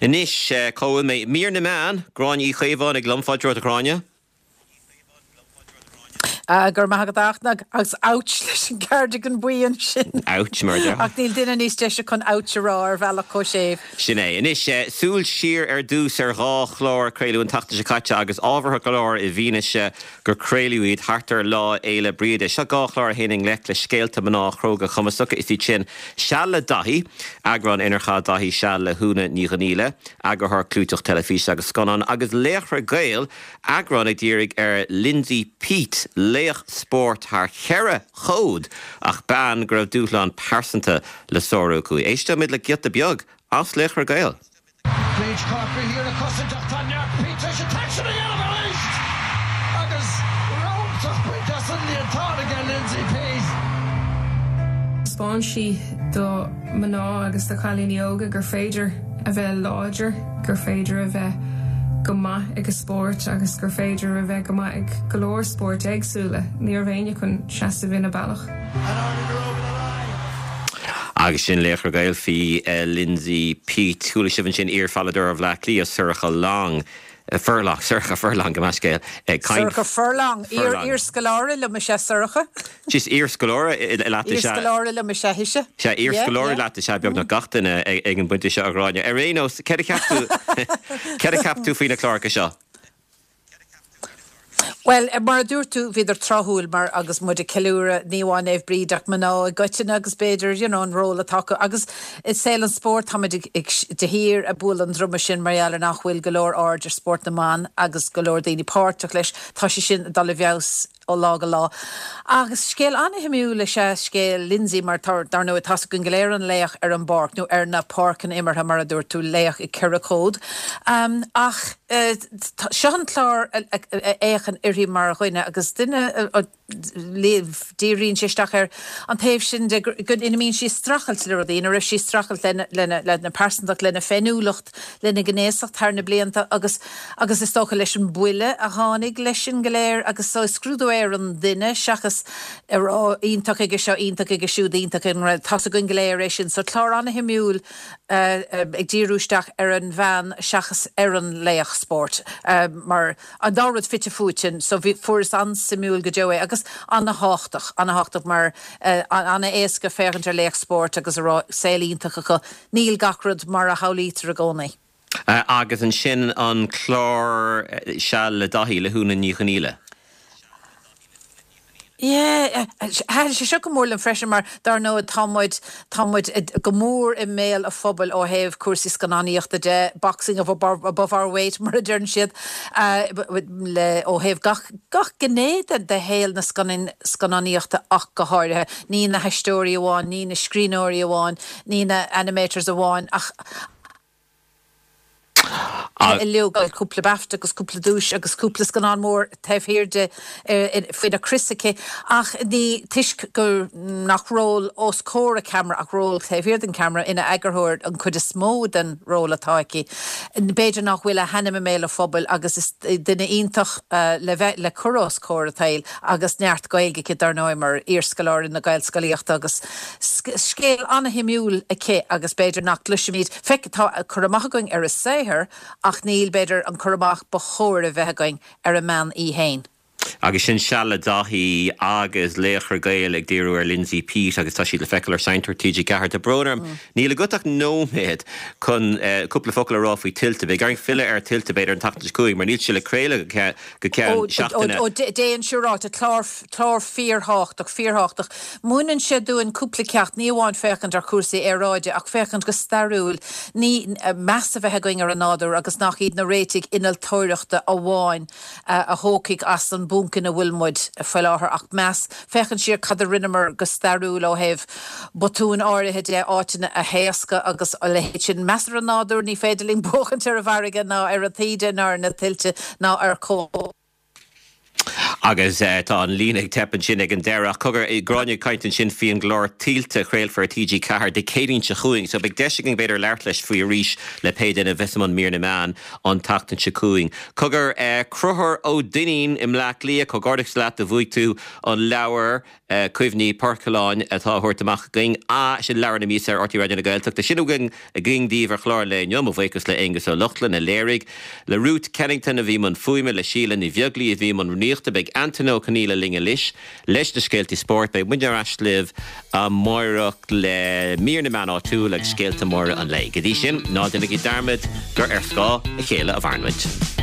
Anois, cá bhfuil mé? Mír na Meán, Gráinne Uí Chaomhánaigh liom. Fáilte romhat, a Ghráinne. Go raibh maith agat a Fhachtna, agus ouch leis an gcardigan buí ansin. Ouch, mar a déarfá. Ach níl duine níos deise chun ouch a rá ar bhealach chomh séimh. Sin é. Anois, súil siar ar dtús ar dhá chlár a craoladh an tseachtain seo caite agus ábhartha go leor i bhfianaise gur craoladh iad thart ar Lá Fhéile Bríde. Seo dhá chlár a théann i ngleic le scéalta mná chróga cumasacha. Is iad sin Seal le Daithí, eagrán inar chaith Daithí seal le hÚna Ní Dhonghaíle, eagarthóir clúiteach teilifíse agus scannán, agus Laochra Gael, Eagrán a dhírigh ar Lindsay Peat, laoch spóirt thar cheithre chód ach bean go raibh dúshlán pearsanta le sárú aici. Éisteoimid le giota beag as Laochra Gael. Briege Corkery thiar ag cosaint ach tá neart Peat tar éis an t-aicsean a dhéanamh arís agus riochtach bainte as an líontán aige Lindsay Peat. Thaispeáin sí do mhná agus do chailíní óga gur féidir a bheith láidir, gur féidir a bheith go maith ag a spórt agus gur féidir a bheith go maith ag go leor spóirt éagsúla. Ní raibh éinne chun seasamh ina bealach. Agus sin Laochra Gael faoi Lindsay Peat. Chuala sibh ansin iar-pheileadóir Bhaile Átha Cliath, Sorcha Long. Furlong, Sorcha Furlong, gabh mo leithscéal, ag caint. Sorcha Furlong, iar-scoláire liom is ea Sorcha. Is iar-scoláire leat is ea. Iar-scoláire liom is ea ise. Sea, iar-scoláire leat is ea beagnach gach duine ag an bpointe seo, a Ghráinne. Ar aon nós, céard a cheap tú, céard a cheap tú faoi na cláracha seo? Bhuel, mar a dúirt tú, bhíodar tráthúil mar agus muid ag ceiliúradh ní amháin Naomh Bríd ach mná i gcoitinne agus b'fhéidir, you know, an ról atá acu. Agus i saol an spóirt táimid ag, ag, de shíor ag bualadh an druma sin mar gheall ar nach bhfuil go leor aird ar spórt na mban agus go leor daoine páirteach leis. Tá sé sin ag dul i bhfeabhas ó lá go lá. Agus scéal an-shuimiúil is ea scéal Lindsay mar tá, dar ndóigh, tá's againn go léir an laoch ar an bpáirc, nó ar na páirceanna imeartha mar a dúirt tú, laoch i gceithre chód. Ach seo an clár a fhéachann uirthi mar dhuine agus duine a díríonn sé isteach ar an taobh sin de ina mbíonn sí ag streachailt le rudaí, ina raibh sí ag streachailt lena, lena pearsantacht, lena féiniúlacht, lena gnéasacht thar na blianta agus agus is dócha leis an buille a tháinig leis sin go léir agus so is scrúdú é ar an duine seachas a rá iontach aige seo, iontach aige siúd, iontach ag an rud, tá's againn go léir é sin. So clár an-shuimiúil ag díriú isteach ar an bhean seachas ar an laoch spóirt mar an dá rud fite fuaite so bhí, fuaireas an-suimiúil go deo é agus an-thábhachtach, an-thábhachtach mar an-éasca féachaint ar laoch spóirt agus a rá saol iontach acu. Níl gach rud mar a shamhlaítear i gcónaí. Agus ansin an clár Seal le Daithí le hÚna Ní Dhonghaíle. Yeah, thaitin sé seo go mór liom freisin mar dar ndóigh tá muid, tá muid go mór i mbéal an phobail ó thaobh cúrsaí scannánaíochta de, boxing above our weight mar a deireann siad, le, ó thaobh gach, gach gné de, de shaol na scannánaíochta ach go háirithe. Ní na haisteoirí amháin, ní na scríbhneoirí amháin, ní na animators amháin ach uilig, cúpla BAFTA agus cúpla duais agus cúpla scannán mór taobh thiar di faoina crios aici ach ní toisc gur nach ról os comhair an cheamara ach ról taobh thiar den cheamara ina eagarthóir an chuid is mó den ról atá aici. B'fhéidir nach bhfuil a hainm i mbéal an phobail agus is duine iontach le bheith le cur os comhair an tsaoil agus neart Gaeilge aici dar ndóigh mar iarscoláire na Gaelscolaíochta agus Scéal an-shuimiúil aici agus b'fhéidir nach gcloisimid, feic, tá cur amach againn ar a saothar ach níl, b'fhéidir, an cur amach ba chóir a bheith againn ar an mbean í fhéin. Agus sin Seal le Daithí agus Laochra Gael ag díriú ar Lindsay Peat agus tá siad le feiceáil ar Seinnteoir TG4. Tá brón orm, níl agat ach nóiméad chun cúpla focal a rá faoi Tuilte. Beidh orainn filleadh ar Tuilte b'fhéidir an tseachtain seo chugainn mar níl sé le craoladh go ceann seachtaine. Ó, déan siúráilte, clár Clár fíorthábhachtach, fíorthábhachtach. Múineann sé dúinn cúpla ceacht, ní amháin féachaint ar chúrsaí aeráide ach féachaint go stairiúil, ní, meas a bheith againn ar an nádúr agus nach iad na réitigh innealtóireachta amháin a thógfaidh as an bponc ina bhfuil muid faoi láthair ach meas, féachaint siar cad a rinneamar go stairiúil ó thaobh botúin áirithe de, áiteanna a thaoscadh agus a leithéid sin. Meas ar an nádúr, ní féidir linn buachaint ar an bhfarraige ná ar an taoide ná ar na tuilte ná ar. Agus tá an líne ag teip ansin ag an deireadh ach cogar, Gráinne ag caint ansin faoi an gclár Tuillte a chraolfar ar TG4 Dé Céadaoin seo chugainn so beidh deis againn b'fhéidir labhairt leis faoi arís le pé duine a bheas i mbun mír na meán an tseachtain seo chugainn. Cogar, Conchúr Ó Duinnín i mBleá Cliath, comhghairdeachas leat do bhuaigh tú an leabhar. Cuimhní Poircealláin atá á thabhairt amach againn. Sin leabhar na míosa ar RTÉ Raidió na Gaeltachta. Sin againn daoibh ar chlár an lae inniu. Mo bhuíochas le Aengus Ó Lochlainn a léirigh, le Ruth Kennington a bhí i mbun fuaime, le Síle Ní Bheaglaoí a bhí i mbun rúnaíochta. Beidh Antaine Ó Conghaile linn anois leis na scéaltaí spóirt. Beidh muidne ar ais libh amáireach le mír na meán áitiúil agus scéalta móra an lae. Go dtí sin, ná déanaigí dearmad gur ar scáth a chéile a mhaireann muid.